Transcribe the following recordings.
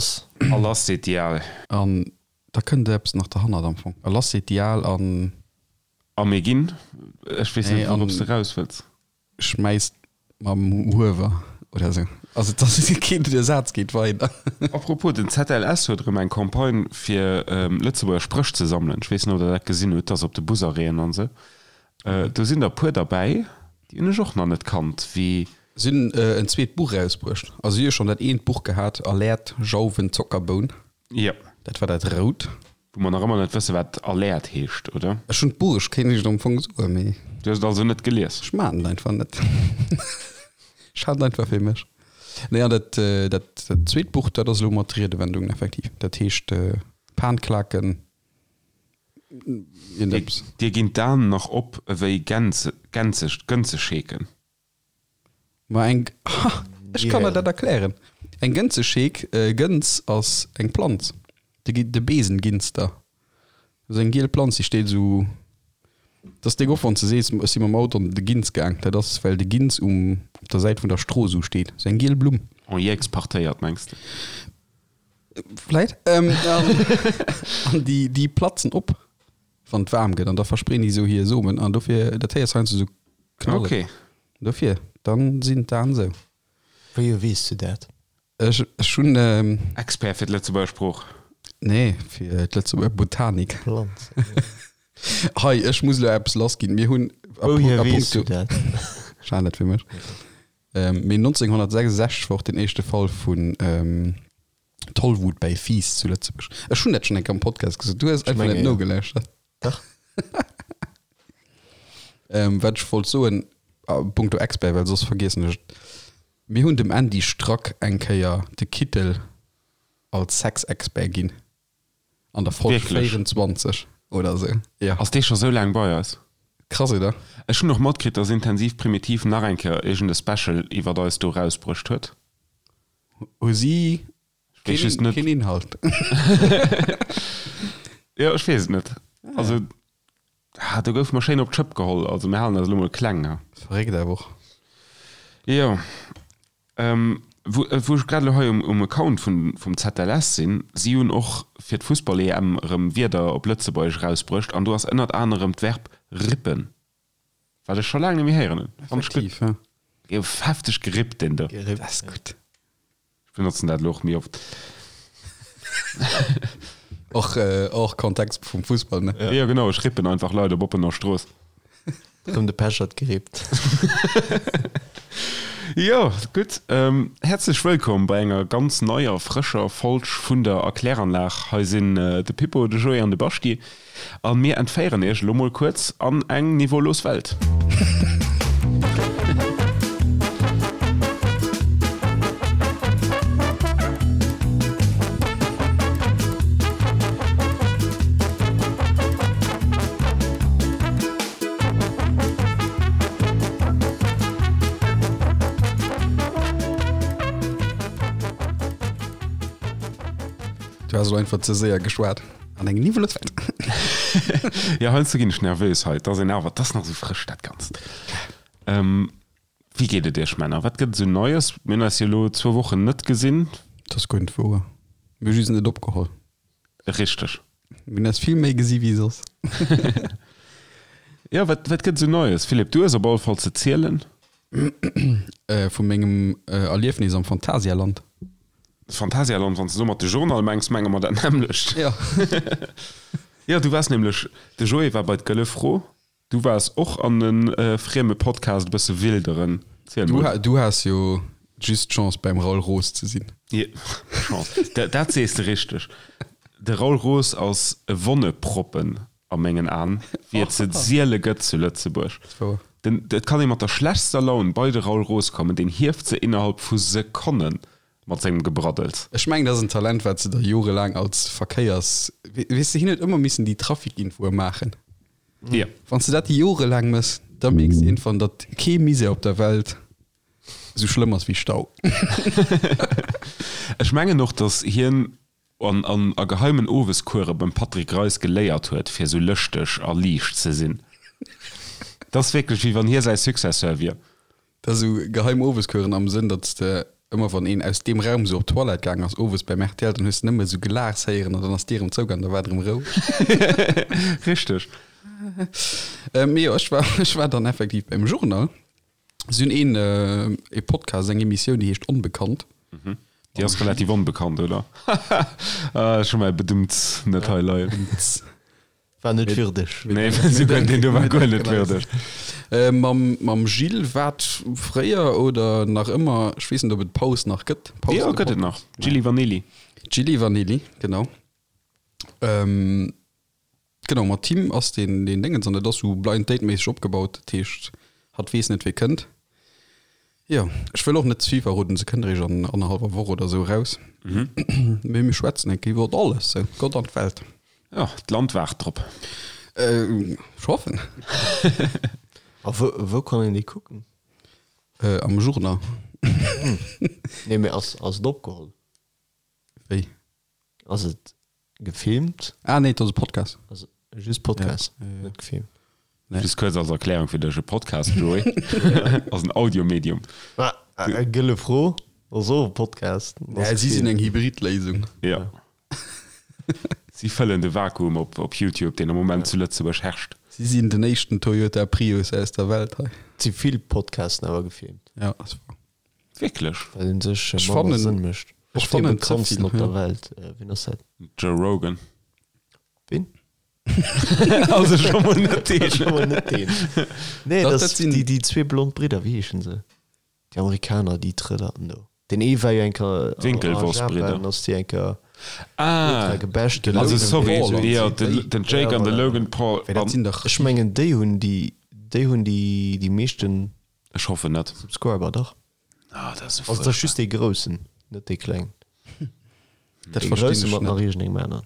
lass. A lass seet déi Al. An da kënnt eppes nach derhannert am Fong. A lass seet déi Al an. A mir ginn. Ech weess net, wourops de raus wëlls. Schmäisst mam Huewer oder esou. Also et ass keen, de Saz geet weider. Apropos, den ZLS huet erëm eng Campagne fir Lëtzebuerger Spréch ze sammelen. Ech weess net, ob der dat gesinn hutt, dat ass op de Busarrêten an esou. Do sinn der e puer derbäi, déi hunn ech och nach net kannt, wéi. Si hunn en zweet Buch erausbruecht. Also si hu schonn dat eent Buch gehat, Alert, Jauwen, Zockerboun. Jo. Dat war dat rout. Wou mer nach ëmmer net wësse wat Alert heescht, oder? Ech hunn d'Buch, ech kéint iech et am Fong soen, mee. Du hues et also net gelies? Ech maan et einfach net. Ech hat et einfach fir mech. Nee, an dat, dat zweet Buch, dat ass elo mat Riedewendungen effektiv. Dat heescht Panklaken, iergendeppes. Dir ginn d'Aen nach op ewéi Gänze, Gänze, Gënzescheeken. Ma eng, ha, ech kann der dat erklären. Eng Gënzescheek, Gënz ass eng Planz, de, de Besenginster. Dat ass eng giel Planz, déi steet esou, dat ass déck oft, wann s de sees, ech si mam Auto an de Ginz gaang, dat ass, well de Ginz um, op der Säit vun der Strooss esou steet. Esou eng giel Blumm. En jeexpartéiert, mengs de? Vläit. An déi, déi platzen op, wann et waarm gëtt, an da verspreen déi esou hir Somen, an dofir, dat héiers heiansdo esou knallen. Okay. Dofir, dann sinn d'Aen sou. Wéi weess du dat? Ech, ech hunn. Expert fir d'Lëtzebuerger Sprooch. Nee, fir d'Lëtzebuerger Botanik. Planzen. Hei, ech muss elo eppes lassginn. Mir hunn a Wouhier weess du dat? Ech halen dat fir mech. Mee 1966 war och den éischte Fall vun Tollwut bäi Fiiss zu Lëtzebuerg. Ech hunn dat schonn eng Kéier am Podcast gesot. Du hues einfach net nogelauschtert. Dach. Ähm, wat ech wollt soen, a punkto Expert, well soss vergiessen ech et, Mir hunn dem Andy Strack eng Kéier de Kittel als Sexexpert ginn. An der Folg Wierklech? 24 oder esou. Jo. Ass dee scho sou laang bei eis? Krass, oder? Ech hunn och matkritt, dass Intensiv Primitiv nach eng Kéier iergend e Special iwwert eis do rausbruecht huet. Hu si Ech weess just net. Keen Inhalt. Jo, ech weess et net. Also, ah, do goufe mer schéin op d'Schëpp geholl. Also, mir halen eis elo mol kleng, ha. Verréckt awer och. Jo. Ähm, wou, wou ech grad elo hei um, um Account vun, vum ZLS sinn, si hunn och fir d'Fussball-EM erëm Wierder op Lëtzebuergesch erausbruecht an do ass ënnert anerem d'Verb rippen. Wat ech scho laang net méi héieren hunn. Fand ech gutt. Effektiv, ja. Gouf hefteg gerippt, deen do. Gerippt, Dat ass gutt. Ech benotzen dat elo och méi oft. Och, och Kontext vum Fussball, ne? Jo, genau, ech rippen einfach Leit op oppener Strooss. Rëm de Pechert gerippt. Jo, gutt. Häerzlech wëllkomm bei enger ganz neier, frëscher Folg vun der Erkläranlag. Hei sinn de Pippo, de Joé an de Baschti. An mir entféieren iech elo mol kuerz an eng niveaulos Welt. Du has elo einfach ze séier geschwat. An eng niwweleg Welt. Jo, heiansdo ginn ech nervös hei. Et ass een awer, et ass nach esou frësch dat Ganzt. Wéi geet et iech Männer? Wat gëtt et esou Neies? Mir hunn eis jo elo zwou Wochen net gesinn. Dat ass guer net wouer. Mir hu just net opgeholl. Richteg. Mir hunn eis vill méi gesi wéi soss. Jo, wat, wat gëtt et esou Neies? Philippe, du hues op alle Fall ze zielen. Vu mengem Erliefnis am Phantasialand. Phantasialand, wann s de domat de Journal mengs, menge mer dat nämmlecht. Jo. Jo, du waars nämlech, de Joé war bei d'Gëlle Fro, du waars och an e frieme Podcast e bësse wilderen. Ziel mol. Du has jo just d'Chance beim Raoul Roos ze sinn. Jo, Chance, dat sees de richteg. De Raoul Roos ass e Wonneproppen a mengen Aen, wéi et se siele gëtt zu Lëtzebuerg. Den, et kann ee mat der schlechtster Laun bei de Raoul Roos kommen, deen hieft se innerhalb vu Sekonne mat sengem Gebraddels. Ech mengen, dat ass en Talent, wat se der jorelaang als Verkéiers-, weess de, hien huet ëmmer missen déi Trafikinfoe maachen. Jo. Wann s de dat jorelaang méchs, da mierks de iergendwann, datt kee Misär op der Welt esou schlëmm ass wéi Stau. Ech mengen och, datt hien An an a geheimen Oweskuere beim Patrick Reis geléiert huet, fir esou lëschteg a liicht ze sinn. 't ass wierklech, wéi wann hie säi Successeur wier. Dat ass esou geheim Oweskueren am Sënn, datt s de. Ëmmer wann een aus deem Raum sou op d'Toilette gaang ass owes beim rtl, dann hues de nëmme sou Gelaachs héieren an dann ass d'Dier erëm zougaang, da war et erëm roueg. Richteg. Mee jo, ech war, ech war dann effektiv beim Journal. Si hunn een, ee Podcast, eng Emissioun, déi heescht Onbekannt. Déi ass relativ onbekannt, oder? Ech hu mäi Bedumts net hei leien. War net würdeg. Nee, souguer deen do war guer net würdeg. Mam, mam Gilles, wat fréier oder nach ëmmer, ech weess net, ob et Paus nach gëtt. Paus Jo, gëtt et nach. Gilli Vanilli. Gilli Vanilli, genau. Ähm, genau, mat him ass deen, deen Déngens an dat ass sou Blind Date méisseg opgebaut. Dat heescht, hatt weess net, wie kënnt. Jo, ech wëll och net ze vill verroden, se kënnt eréischt an annerhallwer Woch oder sou eraus. Mee mir schwätzen eng Kéier iwwert alles, sou Gott an d'Welt. Jo, d'Land waart drop. Ech hoffen. A wou, wou kann een déi kucken? Am Journal. Nee, mee ass, ass et opgeholl? Wéi? Ass et gefilmt? Ah nee, et ass e Podcast. Ass just Podcast, net gefilmt. Nee. Just kuerz als Erklärung fir dech, e Podcast, Joé, ass en Audiomedium. Ma, gëlle Fro, ass och e Podcast. Ja, si sinn eng Hybridléisung. Ja. Si fëllen de Vakuum op op YouTube, deen am Moment zu Lëtzebuerg herrscht. Si sinn den éischten Toyota Prius aus der Welt hei. Et si vill Podcasten awer gefilmt. Ja, ass wahr. Wierklech? Well en sech Ech manner fannen, Sënn mécht. ech Och dee fannen ze bekanntsten vill, op der ja. Welt, wien ass dat? Joe Rogan. Wien? Also scho mol net deen. Scho mol net deen. Nee, Dat, dat dat ass sinn. déi, déi zwee blond Bridder, wéi heeschen se? Déi Amerikaner, déi Trëllerten do. Den ee war jo eng Kéier a Winklevoss-Bridder. Japan, ass déi eng Kéier Ah, ultra gebasht ginn. also Logan sorry, Paul an jo, déi. den, den Jake Ja, an de voilà. Logan Paul. Wéi, dat An sinn dach. Ech mengen, déi hunn déi, déi hunn déi, déi meeschten ech hoffen net. Subscriber, dach. Ah, dat ass esou Also, dat ass fuerchtbar. just dee Groussen, net dee Klengen. Dat Dee verstinn Grousse ech mat net. nach iergendengem aneren.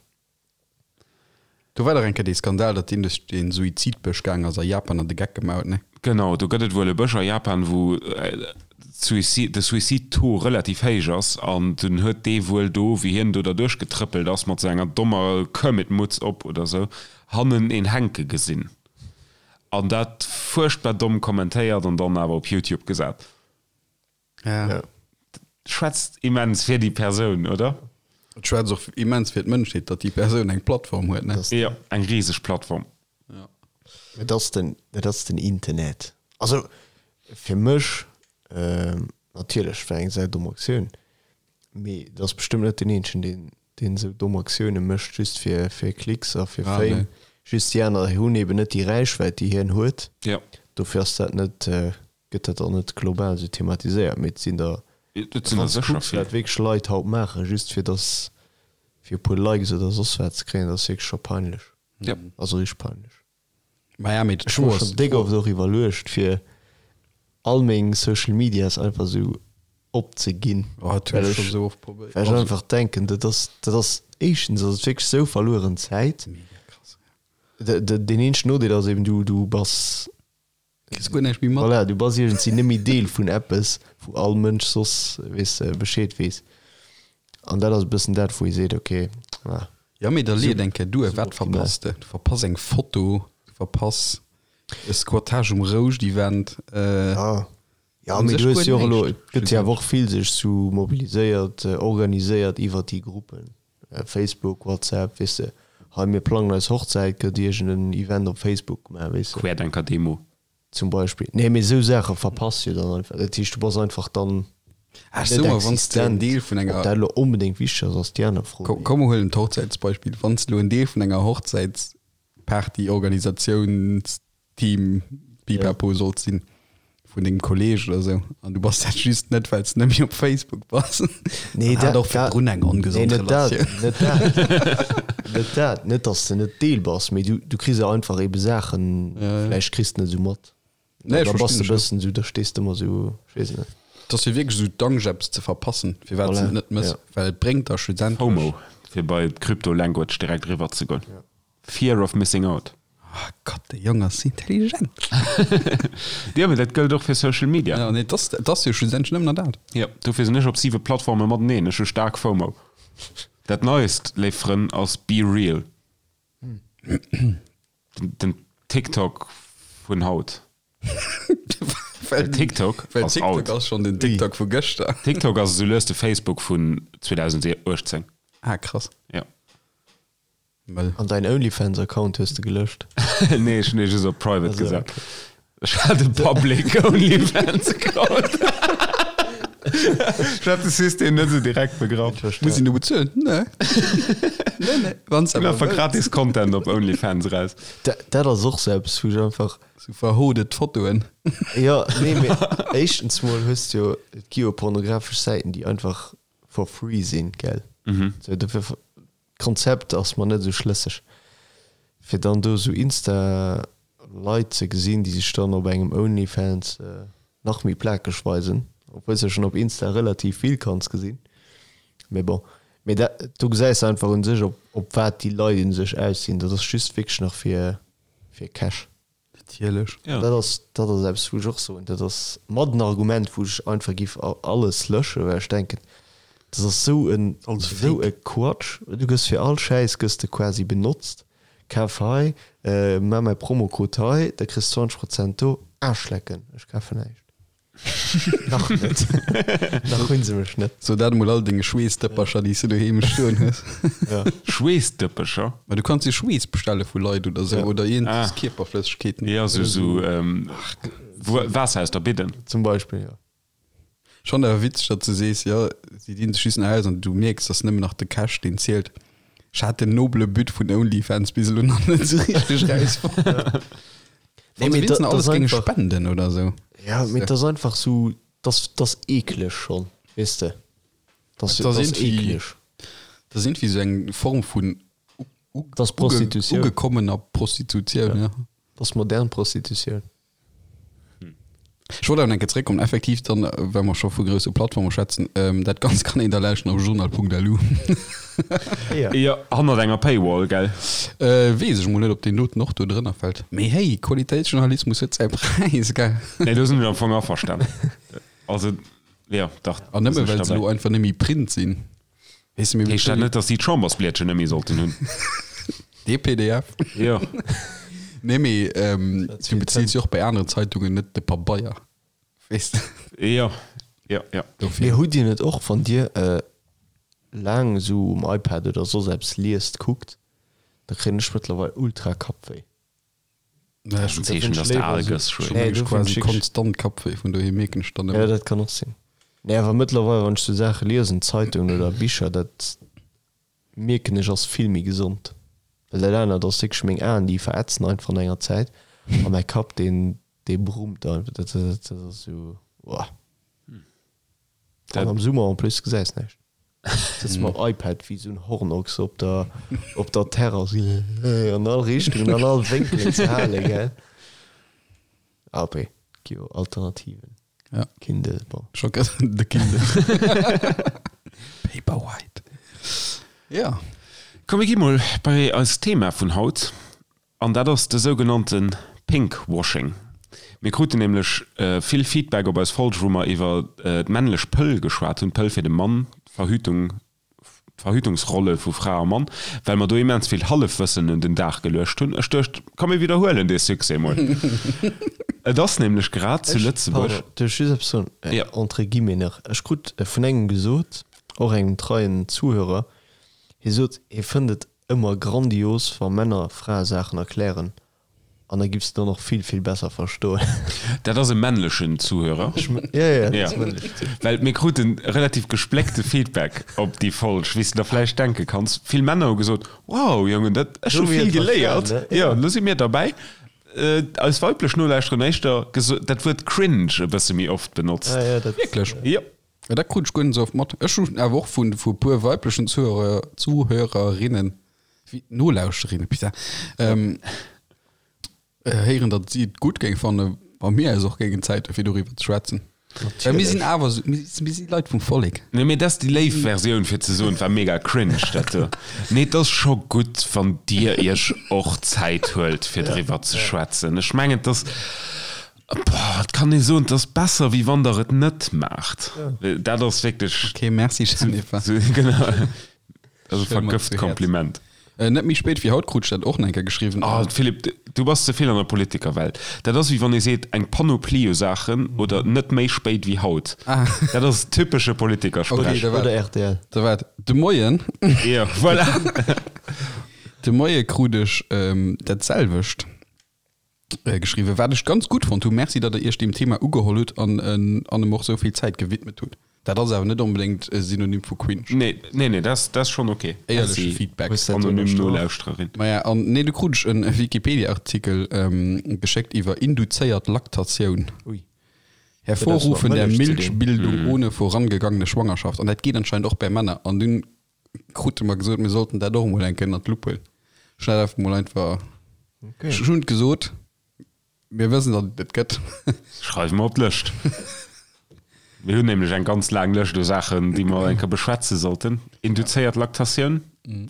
Do war dach eng Kéier dee Skandal, datt deen duerch dee Suizidbësch gaang ass a Japan an de Geck gemaach huet, ne? Genau, do gëtt et wuel e Bësch a Japan, wou de Suicide-Taux relativ héich ass an dunn huet dee wuel do, wéi hien do derduerch getrëppelt ass mat sou enger dommer Kermit-Mutz op oder sou, hannen een hänke gesinn an dat fuerchtbar domm kommentéiert an dann awer op YouTube gesat. Ja. Schwätzt immens fir déi Persoun, oder? Et schwätzt och immens fir d'Mënschheet, datt déi Persoun eng Plattform huet, ne? Jo, eng riseg Plattform. Ja. Et ass den, et ass den Internet. Also fir mech, natierlech war eng säi domm Aktioun, mee et ass bestëmmt net den eenzegen, deen, deen esou domm Aktioune mécht, just fir, fir Klicks a fir Ah, Fame. nee. Just déi aner hunn eben net déi Räichwäit, déi hien huet. Jo. Dofir ass dat net, gëtt dat dann net global esou thematiséiert, mee et sinn der, Et sinn der wann s de sécher kucks vill. wat wierklech Leit haut maachen, just fir dass fir e puer Likes oder soss wat ze kréien, dat ass wierklech scho peinlech. Ja. Also richteg peinlech. Maja, mee Ech hu mer schonn déck oft och iwwerluecht fir all meng Social Medias einfach esou opzeginn, Oh, dat hunn well ech scho ech sou oft probéiert. well ech einfach denken, dat ass dat ass éischtens ass et wierklech esou verlueren Zäit. Mega krass, ja. Deen eenzegen Nodeel ass eben du du bass Kriss guer näischt méi mat. Voilà, du bass iergendwéi net méi Deel vun eppes, wou all Mënsch soss, weess de, Bescheed weess. An dat ass e bëssen dat, wou ee seet, okay, ah. Ja, mee da leet eng Kéier duer. Wat Suboptimal. verpass de? Du verpass eng Foto, du verpass e Squattage um Rouscht-Event. Ja, ja, Un mee sech du hues guer jo och elo, näischt, et gëtt jo awer och vill sech sou mobiliséiert, organiséiert iwwer déi Gruppen, Facebook, WhatsApp, weess de, hei mir plangen eis Hochzäit, gëtt iergend en Event op Facebook gemaach, weess de. Querdenker-Demo. Zum Beispill. Nee, mee esou Saache verpass jo dann einfach. Dat heescht, du bass einfach dann Ah, ech net soe mer, wann s de en existent. Deel vun Ob enger, dat elo onbedéngt wichteg ass, ass déi aner Fro. komm, komm mer huelen d'Hochzäitsbeispill, wann s de elo en Deel vun enger Hochzäitsparty-Organisations Team Pipapo sollt sinn vun dengem Kolleg oder sou an du bass dat just net well s de net méi op Facebook bass. Nee, dat och virdrun eng ongesond nee, net dat, Relatioun. net dat, net dat, net dass de net Deel bass, mee du, du kriss jo einfach ebe Saachen, Ja, ja. vläicht kriss de net esou mat. Nee, ech da bass verstinn de dech, ja. bëssen esou, da stees de ëmmer esou, ech weess net. Et ass jo wierklech esou d'Angscht eppes ze verpassen, firwat s Voilà, de et net mëss, ja. well et bréngt der schlussendlech. FOMO, fir bei d'Crypto-Language direkt eriwwer ze goen. Fear of missing out. Ah Gott, de Jong ass intelligent. Jo, mee dat gëllt och fir Social Media. Ja, nee, dat dat ass jo schlussendlech nëmmen nach dat. Jo, dofir sinn ech op siwe Plattforme mateneen. Ech hu staark FOMO. Dat Neist, léif Frënn, ass Be Real. Den, den TikTok vun haut. Well TikTok well ass TikTok out. ass schonn den TikTok vu gëschter. TikTok ass esou lues de Facebook vun 2018. Ah, krass. Ja. Mëll. An däin OnlyFans-Account hues de gelöscht? Nee, ech hunn dee just op private Also, gesat. okay. Ech hat e public OnlyFans-Account. Ech hat de System net esou direkt begraff. Muss een do bezuelen? Nee. Nee, nee. Wann s Ginn awer einfach wëlls. gratis Content op OnlyFans raus. Dat, dat ass och sou eppes, wou ech einfach. Sou verhodet Fotoen. Jo, nee, mee éischtens mol hues de jo, et gi jo pornografesch Säiten, déi einfach for free sinn, gell? Sou, dofir D'Konzept ass mer net esou schlësseg. Fir dann do esou Insta Leit ze gesinn, déi sech dann op engem Onlyfans nach méi plakeg weisen, obwuel s de schonn op Insta relativ vill kanns gesinn. Mee bon, mee dat do gesäis de einfach un sech op op wat déi Leit un sech aus sinn. Dat ass just wierklech nach fir fir Cash. Natierlech. Ja. Dat ass, dat ass eppes, wou ech och soen, dat ass mat en Argument, wou ech einfach giff alles löschen, well ech denken, dat ass esou en, Alles esou fake. e Quatsch. Du gëss fir all Schäiss gëss de quasi benotzt. Kaf hei, maach mäi Promocode hei, da kriss 20 Prozent do. Aarschlecken, ech kafen näischt. Nach net. Nach hunn se mech net. So dat emol all denge Schweessdëppercher, déi s du doheem stoen hues. Ja. Schweessdëppercher? Ma du kanns dir Schweess bestelle vu Leit oder sou Ja. oder iergend Ah. Kierperflëssegkeeten. Ja, sou, sou ähm, Waasser aus der Bidden. Zum Beispill, ja. Schonn awer witzeg, datt s du sees, jo, si dinn sech just nach aus an du mierks, dass nëmmen nach de Cash deen zielt. Ech hat den nobele But vun OnlyFans bis elo nach net sou richteg rausfonnt. Nee, mee dat dat alles ass géinge einfach, spenden oder sou. ja, mee dat ass einfach sou, dat ass eekleg schonn, weess de. Dat Dat ass ass irgendwie- eekleg. Dat ass irgendwie sou eng Form vun Dat ass Prostitutioun. ugekommener Prostitutioun, ja. Dat ass modern Prostitutioun. Ech wollt awer nach eng Kéier zréckkommen, effektiv dann, well mer scho vu grousse Plattforme schwätzen, dat Ganzt kann een da lauschten op journal.lu. Ja. Jo, hannert enger Paywall, gell? Weess ech mol net, ob deen doten och do drënner fält. Mee hey, Qualitéitsjournalismus huet säi Präis, gell? Nee, do sinn ech am Fong averstan. Also, jo, dach. An do nëmme sinn ech well se derbäi. elo einfach net méi Print sinn. Weess de, mir Heescht dat net, datt si d'Chambersblietchen net méi sollten hunn? Dee PDF. Jo. Nee, mee du beziils jo och bei aneren Zeitungen net de Pabeier, weess de. Jo, jo, jo. Dofir. Mee hutt Dir net och, wann Dir laang esou um iPad oder soss eppes liest, kuckt, da kréien ech mëttlerweil ultra Kappwéi. Naja, ech Ein Zeechen, dass de al gëss, Schwéi. Nee, hu dofir quasi schick- konstant Kappwéi, vun dohier mierken ech dann Ja, ëmmer. dat kann och sinn. Nee, awer mëttlerweil, wann ech sou Saache liesen, Zeitungen oder Bicher, dat mierken ech ass vill méi gesond. Well dat anert ass wierklech meng Aen, déi verätzen einfach no enger Zäit a mäi Kapp, deen, dee brummt einfach. Dat, dat, dat ass sou, uah. An am Summer en plus gesäis näischt. Sëtz mam iPad wéi sou en Hornochs op der, op der Terrass, an all Richtungen, an all Wénkelen ze halen, gell? Aber gi jo Alternativen. Ja. Kindle, bon. Scho gëtt de Kindle. Paperwhite. Ja. Komm, mir gi mol bei eist Thema vun haut. An dat ass de sougenannte Pinkwashing. Mir kruten nämlech vill Feedback op eis Folg, wou mer iwwer d'männlech Pëll geschwat hunn, d'Pëll fir de Mann, d'Verhütung, d'Verhütungsrolle vu Fra a Mann, well mer do immens vill Hallefwëssen un den Dag geluecht hunn. Ech duecht, komm mir widderhuelen dee Succès mol. Et ass nämlech grad zu Lëtzebuerg. Pardon, duerf ech just eppes soen? Jo. Entre guillemets nach. Ech krut vun engem gesot, och engem treien Zuhörer, hie sot, hie fënnt et Ëmmer grandios wa Männer Frae Saachen erklären an da giffs de dann och vill vill besser verstoen. Dat ass e männlechen Zuhörer. Ja ja, dat Ja. ass männlechen Zuhörer. Well mir kruten relativ gespléckte Feedback op déi Folg, wéi s de der vläicht denke kanns. Vill Männer hu gesot, Wow, Jongen, dat, ech hu Lo hu mir vill et geléiert. verstanen, ne? Jo, lo si mir derbäi. Eis weiblech Nolauschterer hunn éischter geso dat Wuert cringe e bësse méi oft benotzt. Ah ja, dat. Wierklech? Jo. Ja, dat krut ech guer net esou oft mat. Ech hunn awer och vun vu puer weiblechen Zuhörer, Zuhörerinnen, wéi Nolauschterinnen, putain, ähm, héieren, datt si et gutt géing fannen, wa mir eis och géingen Zäit hu fir doriwwer ze schwätzen. Well mir sinn awer esou, mir si mir si Leit vum Vollek. Nee, mee dat ass déi léif Versioun fir ze soen, et war mega cringe dat do. Nee, et ass scho gutt, wann dir iech och Zäit huelt fir driwwer ze schwätzen. Ech mengen, et ass, Boah, et kann ee soen, et ass besser, wéi wann der et net maacht. Dat ass wierklech. Okay, merci Jennifer. Genau. Dat ass e Stell mer vergëft zu Häerz. Kompliment. Net méi spéit wéi haut krut ech dat och nach eng Kéier geschriwwen. Oh Philippe, du bass ze vill an der Politikerwelt. Dat ass wéi wann ee seet eng Panoplie u Saachen oder net méi spéit wéi haut. Dat ass typesche Politikersprech. Oder rtl. Da waart, de Moien. Jo, voilà. De Moie krut ech dat selwecht geschriwwen, wat ech ganz gutt fonnt hunn. Merci, datt der iech deem Thema ugeholl hutt an an em och esou vill Zäit gewidmet hutt. Dat ass awer net onbedéngt e Synonym vu cringe. Nee, nee, nee, dat ass schonn ok. Éierleche Feedback. Anonym Nolauschtererin. Maja, an nee, du krut ech e Wikipedia-Artikel geschéckt iwwer induzéiert Laktatioun. Ui. Hervorrufen der Milchbildung ohne vorangegangene Schwangerschaft. An dat geet anscheinend och bäi Männer. An dunn krute mer gesot, mir sollten dat och emol eng Kéier ënnert d'Lupp huelen. Ech hunn dat einfach mol einfach, ech hunn et gesot, mir wëssen, datt et et gëtt. Schreiwe mer op d'Lëscht. Mir hunn nämlech eng ganz laang Lëscht u Saachen, déi mer eng Kéier beschwätze sollten. Induzéiert Laktatioun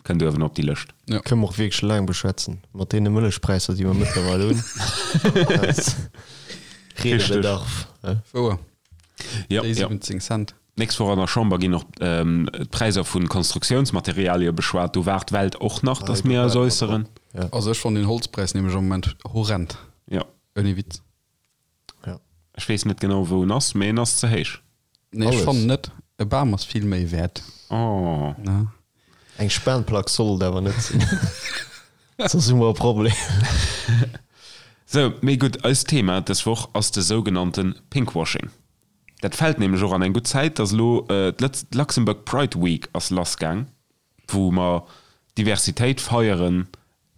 kënnt uewen op déi Lëscht. Kënne mer och wierklech laang beschwätzen, mat deene Mëllechpräisser, déi mer mëttlerweil hunn. Redebedarf. Wouer. Jo, Déi jo. 17 Cent. D'nächst Woch an der Chamber ginn och d'Präisser vu Konstruktiounsmaterialie beschwat. Do waart d'Welt och nach, datt mir eis äusseren. Also ech fannen den Holzpräis nämlech am Moment horrend. Jo. Ouni Witz. Jo. Ech weess net genau wou en ass, mee en ass ze héich. Nee, ech fannen net. E Bam ass vill méi wäert. Oh. Ne? Eng Spanplack soll et awer net sinn. Soss hu mer e Problem. Sou, mee gutt, eist Thema dës Woch ass de sougenannte Pinkwashing. Dat fält nämlech och an eng gutt Zäit, dass elo d'Luxembourg Pride Week ass lassgaang, wou mer Diversitéit feiere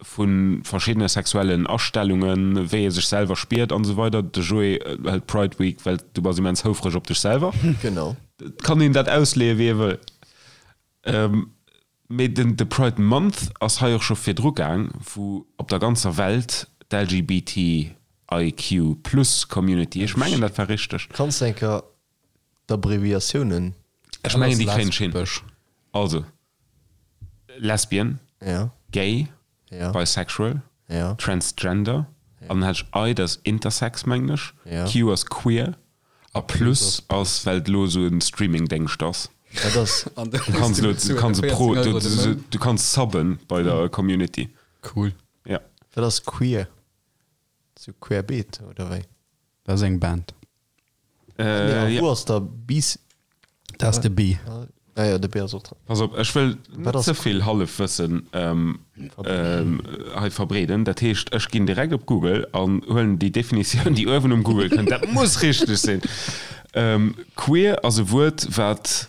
vu verschiddene sexuellen Astellungen, wéi ee sech selwer spiert an esou weider. De Joé hëlt d'Pride Week, well du bass immens houfreg op dech selwer. Genau. Et kann een dat ausleeë wéi ee wëll. Mee den de Pride Month ass hei och scho virdru gaang, wou op der ganzer Welt d'LGBTIQ plus Community, ech mengen dat war richteg. Kanns de eng Kéier d'Abbreviatiounen. Ech mengen déi kréien ech hin. Also, Lesbian, Gay, Bisexual, Transgender, an dann hat ech I, dat ass Intersex mengen ech, Q ass Queer a Plus ass well et elo esou e Streamingdéngscht ass. Dat ass. Du kanns elo, du kanns e Pro, du kanns subben bei der Community. Cool. Ja. Wat ass queer? Sou querbeet oder wéi? Dat ass eng Band. Äh, ja. Wou ass da bis? Dat ass de B. Ah ja, de B ass och dran. Pass op, ech wëll net ze vill Hallefwëssen ähm, ähm, hei verbreeden. Dat heescht, ech ginn direkt op Google an huelen déi Definitioun, déi uewen um Google kënnt. Dat muss richteg sinn. Ähm, queer ass e Wuert, wat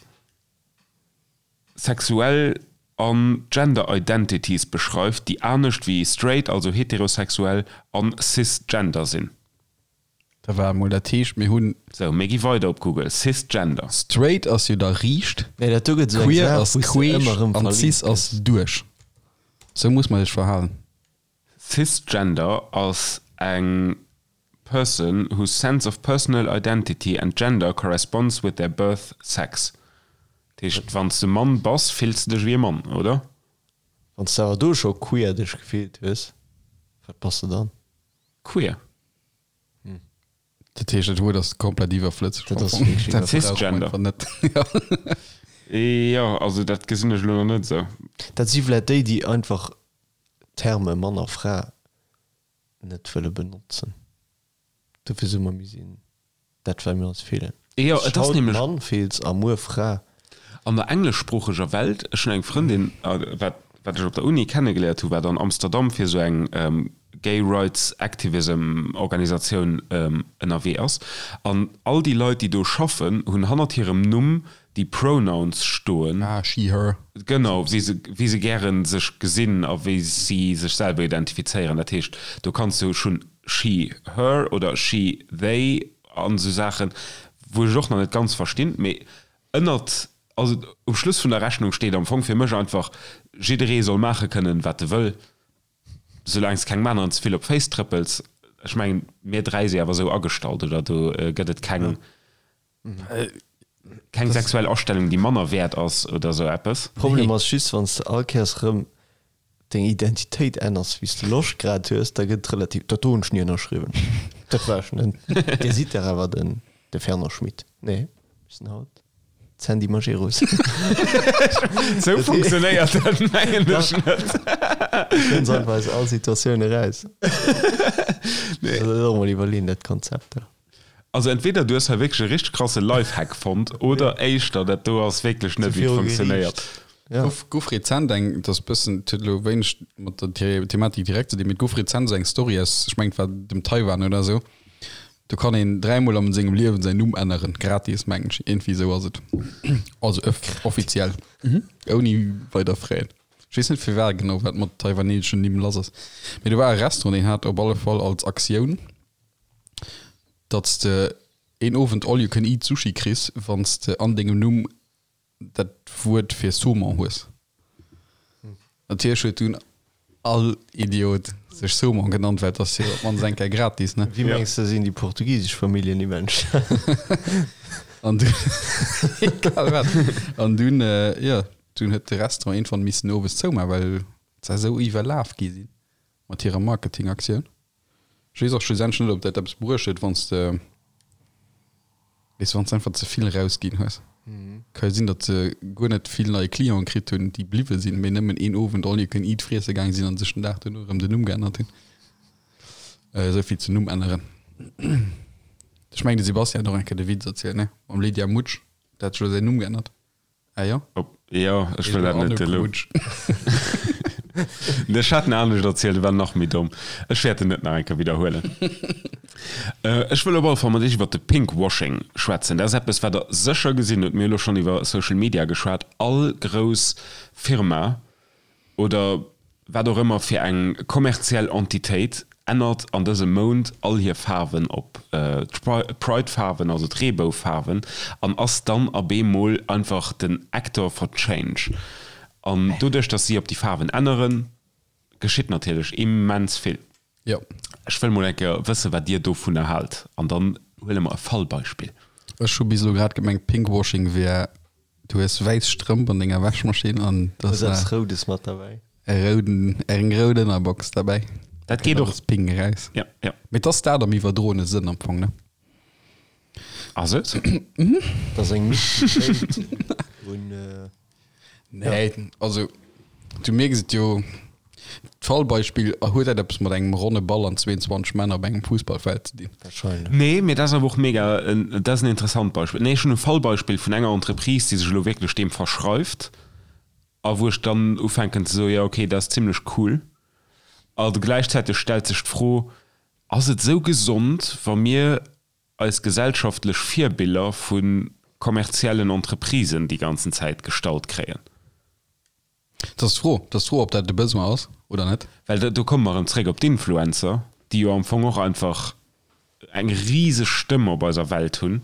sexuell an Gender Identities beschreift, déi anescht wéi straight, also heterosexuell, an cisgender sinn. Da war emol dat heescht mir hunn. Sou, mir gi weider op Google, cisgender. Straight ass jo da riicht, Nee, dat do gëtt esou eng queer Saach, ass wou s de queesch ëmmer erëm an verlinkt cis ass gëss. duerch. Sou muss man sech verhalen. Cisgender ass eng person whose sense of personal identity and gender corresponds with their birth sex. Dat heescht, wann s de Mann bass, fills de dech wéi e Mann, oder? Wann s de awer do scho queer dech gefillt hues, wat bass de dann? Queer. Dat heescht, dat Wuert ass komplett iwwerflësseg. Dat ass wierklech Dat brauche mer Cisgender. einfach net. Ja. Jo, also dat gesinn ech elo nach net esou. Dat si vläit déi, déi einfach d'Terme Mann a Fra net wëlle benotzen. Dofir soe mer, mir sinn dat, wat mir ons fillen. Jo, et ass Haut nämlech. Mann fills a muer Fra. An der engleschsproocheger Welt, ech hunn eng Frëndin, wat wat ech op der Uni kennegeléiert hu, wat an Amsterdam fir esou eng Gay Rights Activism Organisatioun ënnerwee ass, an all déi Leit, déi do schaffen, hunn hannert hirem Numm déi Pronouns stoen. Ah, she, her. Genau, wéi se, wéi se gären sech gesinn a wéi si sech selwer identifizéieren. Dat heescht, do kanns du schonn she, her oder she, they an esou Saachen, wou ech et och nach net ganz verstinn, mee ënnert, also um Schluss vun der Rechnung steet am Fong fir mech einfach, jidderee soll maache kënnen, wat e wëll, soulaang s kengem aneren ze vill op d'Féiss trëppels. Ech mengen, mir 3 si awer esou agestallt, oder? Do gëtt et keng, keng sexuell Astellung, déi manner wäert ass oder esou eppes. Problem ass just, wann s de all Kéiers erëm deng Identitéit änners, wéi s de Loscht grad hues, da gëtt et relativ, dat do hunn ech ni ënnerschriwwen, dat war ech net. Dir sidd dach awer den, de Fernand Schmit. Nee, mir sinn haut. D'Sandy Majerus. Sou funktionéiert dat mengen ech net. Kënns einfach aus all Situatioun eraus. Nee. Also dat och mol iwwerleeën, dat Konzept da. Also entweder du hues hei wierklech e richteg krasse Lifehack fonnt oder éischter dat do ass wierklech net wéi et funktionéiert. Ja. Gouf, gouf rezent eng, dat ass bëssen, et huet elo wéineg mat der Thematik direkt ze dinn, mee et gouf rezent esou eng Story aus, ech mengen et war dem Taiwan oder esou, Do kann een dräimol am sengem Liewen säin Numm änneren, gratis mengen ech, iergendwéi esou ass et. Also offiziell, ouni weider Fräen. Ech weess net firwat genau, wat mat taiwaneseschen Nimm lass ass. Mee do war e Restaurant, deen hat op alle Fall als Aktioun, datt s de een Owend all you can eat Sushi kriss, wann s de an dengem Numm dat Wuert fir Saumon hues. Natierlech huet dunn all Idiot sech Saumon genannt, well et ass jo op d'mannst eng Kéier gratis, ne? Wéi mengs de sinn déi portugisesch Familljennimm entstanen? An dunn, egal wat, an dunn, jo, dunn huet de Restaurant iergendwann missen owes zoumaachen, well se esou iwwerlaf gi sinn mat hirer Marketingaktioun. Ech weess och schlussendlech net, ob dat eppes bruecht huet, wann s de, weess, wann s de einfach ze vill rausginn hues. Ka jo sinn, datt se guer net vill nei Clienten kritt hunn, déi bliwwe sinn, mee nëmmen een Owend all you can eat friesse gaange sinn an sech den Dag duerno erëm den Numm geännert hunn. Esou vill zum Numm änneren. Ech mengen, de Sebastian hat och eng Kéier de Witz erzielt, ne? Mam Lydia Mutsch, dat hat sech elo säin Numm geännert. Ah jo? Op, jo, ech wëll dat net elo. Ech hat en anescht erzielt, e war nach méi domm. Ech wäert en net nach eng Kéier widderhuelen. Ech wëll op alle Fall mat Iech iwwer de Pinkwashing schwätzen. Dat ass eppes, wat Der sécher gesinn hutt. Mir hu elo schonn iwwer Social Media geschwat. All grouss Firma oder wat och ëmmer fir eng kommerziell Entitéit ännert an dësem Mount all hir Faarwen op d'Pride-Faarwen, also d'Reebou-Faarwen, an ass dann a beemol einfach den Actor for Change. An doduerch, datt si op déi Faarwen änneren, geschitt natierlech immens vill. Jo. Ech wëll mol eng Kéier wëssen, wat Dir dovunner haalt, an dann huele mer e Fallbeispill. Ech hu bis elo grad gemengt, Pinkwashing wär, du hues wäiss Strëmp an denger Wäschmaschinn an da ass eppes Roudes mat derbäi. E rouden, eng rout Ënnerbox derbäi. Dat geet och. Alles pink eraus. Ja, ja. Mee et ass dat am iwwerdroene Sënn am Fong, ne? Ass et? Dat ass eng Mixtéit un. Nee, also du mierks et jo, d'Fallbeispill, huet dat eppes mat engem ronne Ball an 22 Männer op engem Fussballfeld ze dinn? Wahrscheinlech. Nee, mee dat ass awer och mega, dat ass en interessant Beispill. Nee, ech hunn e Fallbeispill vun enger Entreprise, déi sech elo wierklech deem verschreift a wou ech dann ufänken ze soen, jo okay, dat ass zimlech cool. A gläichzäiteg stellt sech d'Fro, Ass et esou gesond, wa mir eis gesellschaftlech Virbiller vu kommerziellen Entreprisen déi ganzen Zäit gestallt kréien. Dat ass d'Fro. Dat ass d'Fro, ob dat de Besoin ass oder net. Well do komme mer erëm zréck op d'Influencer, déi jo am Fong och einfach eng riseg Stëmm op eiser Welt hunn,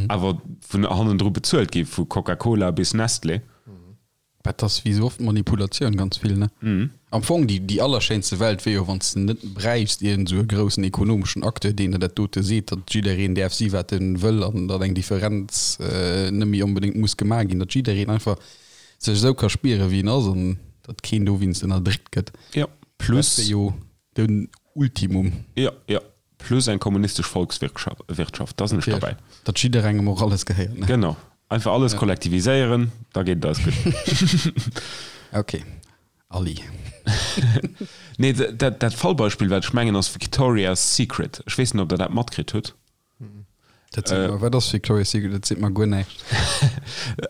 awer vun hannendru bezuelt gi vu Coca-Cola bis Nestlé. Dat ass wéi sou oft Manipulatioun, ganz vill, ne? Am Fong déi, déi allerschéinste Welt wier jo, wann s de net bräichst iergend esou e groussen ekonomeschen Acteur, deen der dat dote seet, datt jiddereen däerf si wat en wëll an datt eng Differenz net méi onbedéngt muss gemaach ginn, datt jiddereen einfach sech esou ka spieren, wéi en ass an datt keen dowéinst ënnerdréckt gëtt. Jo, plus. Dat wier jo den Ultimum. Jo, jo. Plus eng kommunistesch Volkswirtschaft, da sinn ech derbäi. Datt jidderengem och alles gehéiert, ne? Genau. Einfach alles kollektiviséieren, da geet et eis gutt. Ok, Ali. Nee, dat, dat Fallbeispill, wat ech mengen, ass Victoria's Secret. Ech weess net, ob Der dat matkritt hutt. Dat seet mer, wat ass Victoria's Secret? Dat seet mer guer näischt.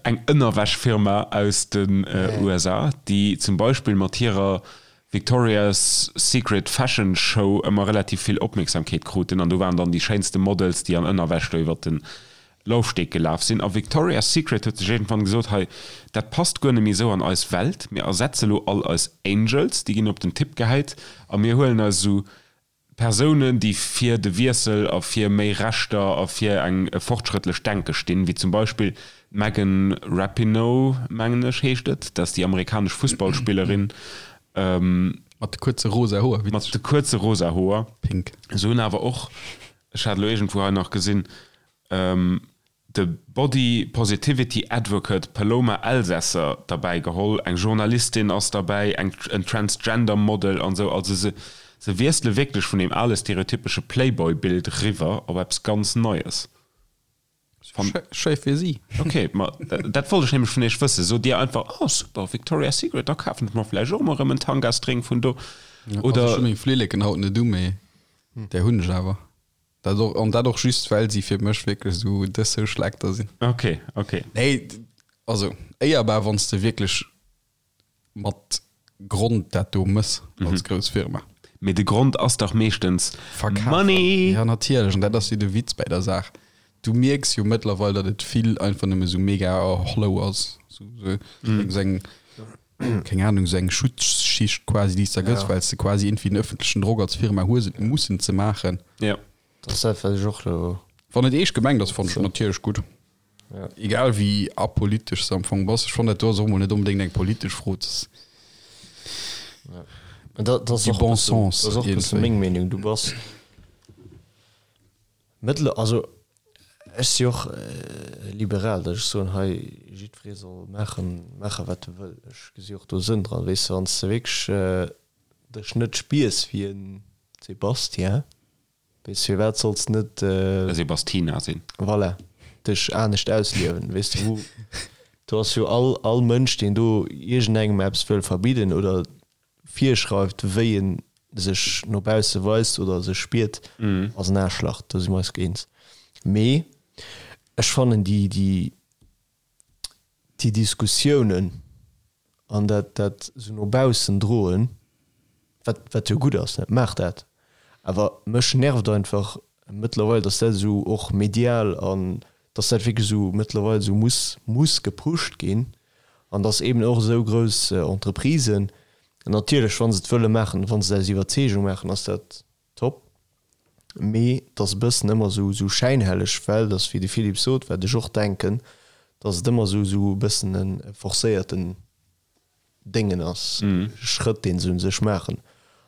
Eng Ënnerwäschfirma aus den USA, déi zum Beispill mat hirer Victoria's Secret Fashion Show ëmmer relativ vill Opmierksamkeet kruten an do waren dann déi schéinste Models, déi an Ënnerwäsch do iwwert de Laufsteg gelaf sinn. A Victoria's Secret huet sech iergendwann gesot, hei, dat passt guer net méi esou an eis Welt, mir ersetze lo all eis Angels, déi ginn op den Tipp gehäit a mir huelen eis esou Persounen, déi fir de Wiessel a fir méi Rechter a fir eng e fortschrëttlecht Denke stinn, wéi zum Beispill d'Megan Rapinoe, mengen ech heescht et, dat ass déi amerikanesch Fussballspillerin. Mat de kuerze rosa Hoer, witzeg. Mat de kuerze rosa Hoer. Pink. Se hunn awer och, ech hat elo iergendwou hei nach gesinn, de Body Positivity Advocate Paloma Elsesser derbäi geholl, eng Journalistin ass derbäi, eng en Transgender Model an esou. Also se se wiessele wierklech vun deem ale stereotypesche Playboy-Bild riwwer op eppes ganz Neies. Schéi fir si. Ok, ma dat wollt ech nämlech vun iech wëssen. Sot dir einfach, oh super, Victoria's Secret, da kafen ech mer vläicht och emol erëm en Tanga-String vun do? Oder. Also ech hu meng Flilleken haut net u, mee där hunn ech awer. Dat och, an dat och just, well si fir mech wierklech esou de Social Actor sinn. Ok, ok. Nee, also éierbar, wann s de wierklech mat Grond dat do mëss als grouss Firma. Mee de Grond ass dach meeschtens Verkafen. Money! Ja natierlech, an dat ass jo de Witz bäi der Saach. Du mierks jo mëttlerweil, datt et vill einfach nëmme sou mega hollow ass, sou sou eng, keng Ahnung, sou eng Schutzschicht quasi, déi s de da gëss, well s de quasi iergendwéi den ëffentlechen Drock als Firma hues, et mussen ze maachen. Ja. Dat ass dat, wat ech och elo. Wann et eescht gemengt ass, fannen ech et natierlech gutt. Egal wéi apolitesch s de am Fong bass. Ech fannen dat do ass och mol net onbedéngt eng politesch Fro. Dat ass Du och bon bëssen, sens dat ass och bësse iergendwéi. meng Meenung. Du bass mëttler, also ech si och liberal, datt ech soen, hei jiddweree soll maachen, maache wat e wëll. Ech gesi och do Sënn dran, weess de, wann s de wierklech dech net spiers wéi en Sébastien, Weess firwat solls net. E Sebastina sinn. Voilà, dech anescht ausliewen, weess de wou do ass jo all all Mënsch deen do iergendengem eppes wëll verbidden oder virschreift wéi en sech no bausse weist oder sech spiert, ass en Aarschlach, do si mer eis eens. Mee ech fannen déi déi déi Diskussiounen an dat dat esou no baussen droen, wat wat jo gutt ass, ne, maacht dat, awer mech nervt einfach mëttlerweil, datt dat esou och medial an datt dat wierklech esou mëttlerweil esou muss muss gepusht ginn an datt eben och esou grouss Entreprisen, natierlech wa se et wëlle maachen, wa se et aus Iwwerzeegung maachen, ass dat Top. Mee et ass e bëssen ëmmer esou esou schäinhelleg, well et ass wéi de Philippe sot, wat ech och denken, dass et ëmmer esou esou e bëssen e forcéierten Déngen ass, Schrëtt deen se un sech maachen.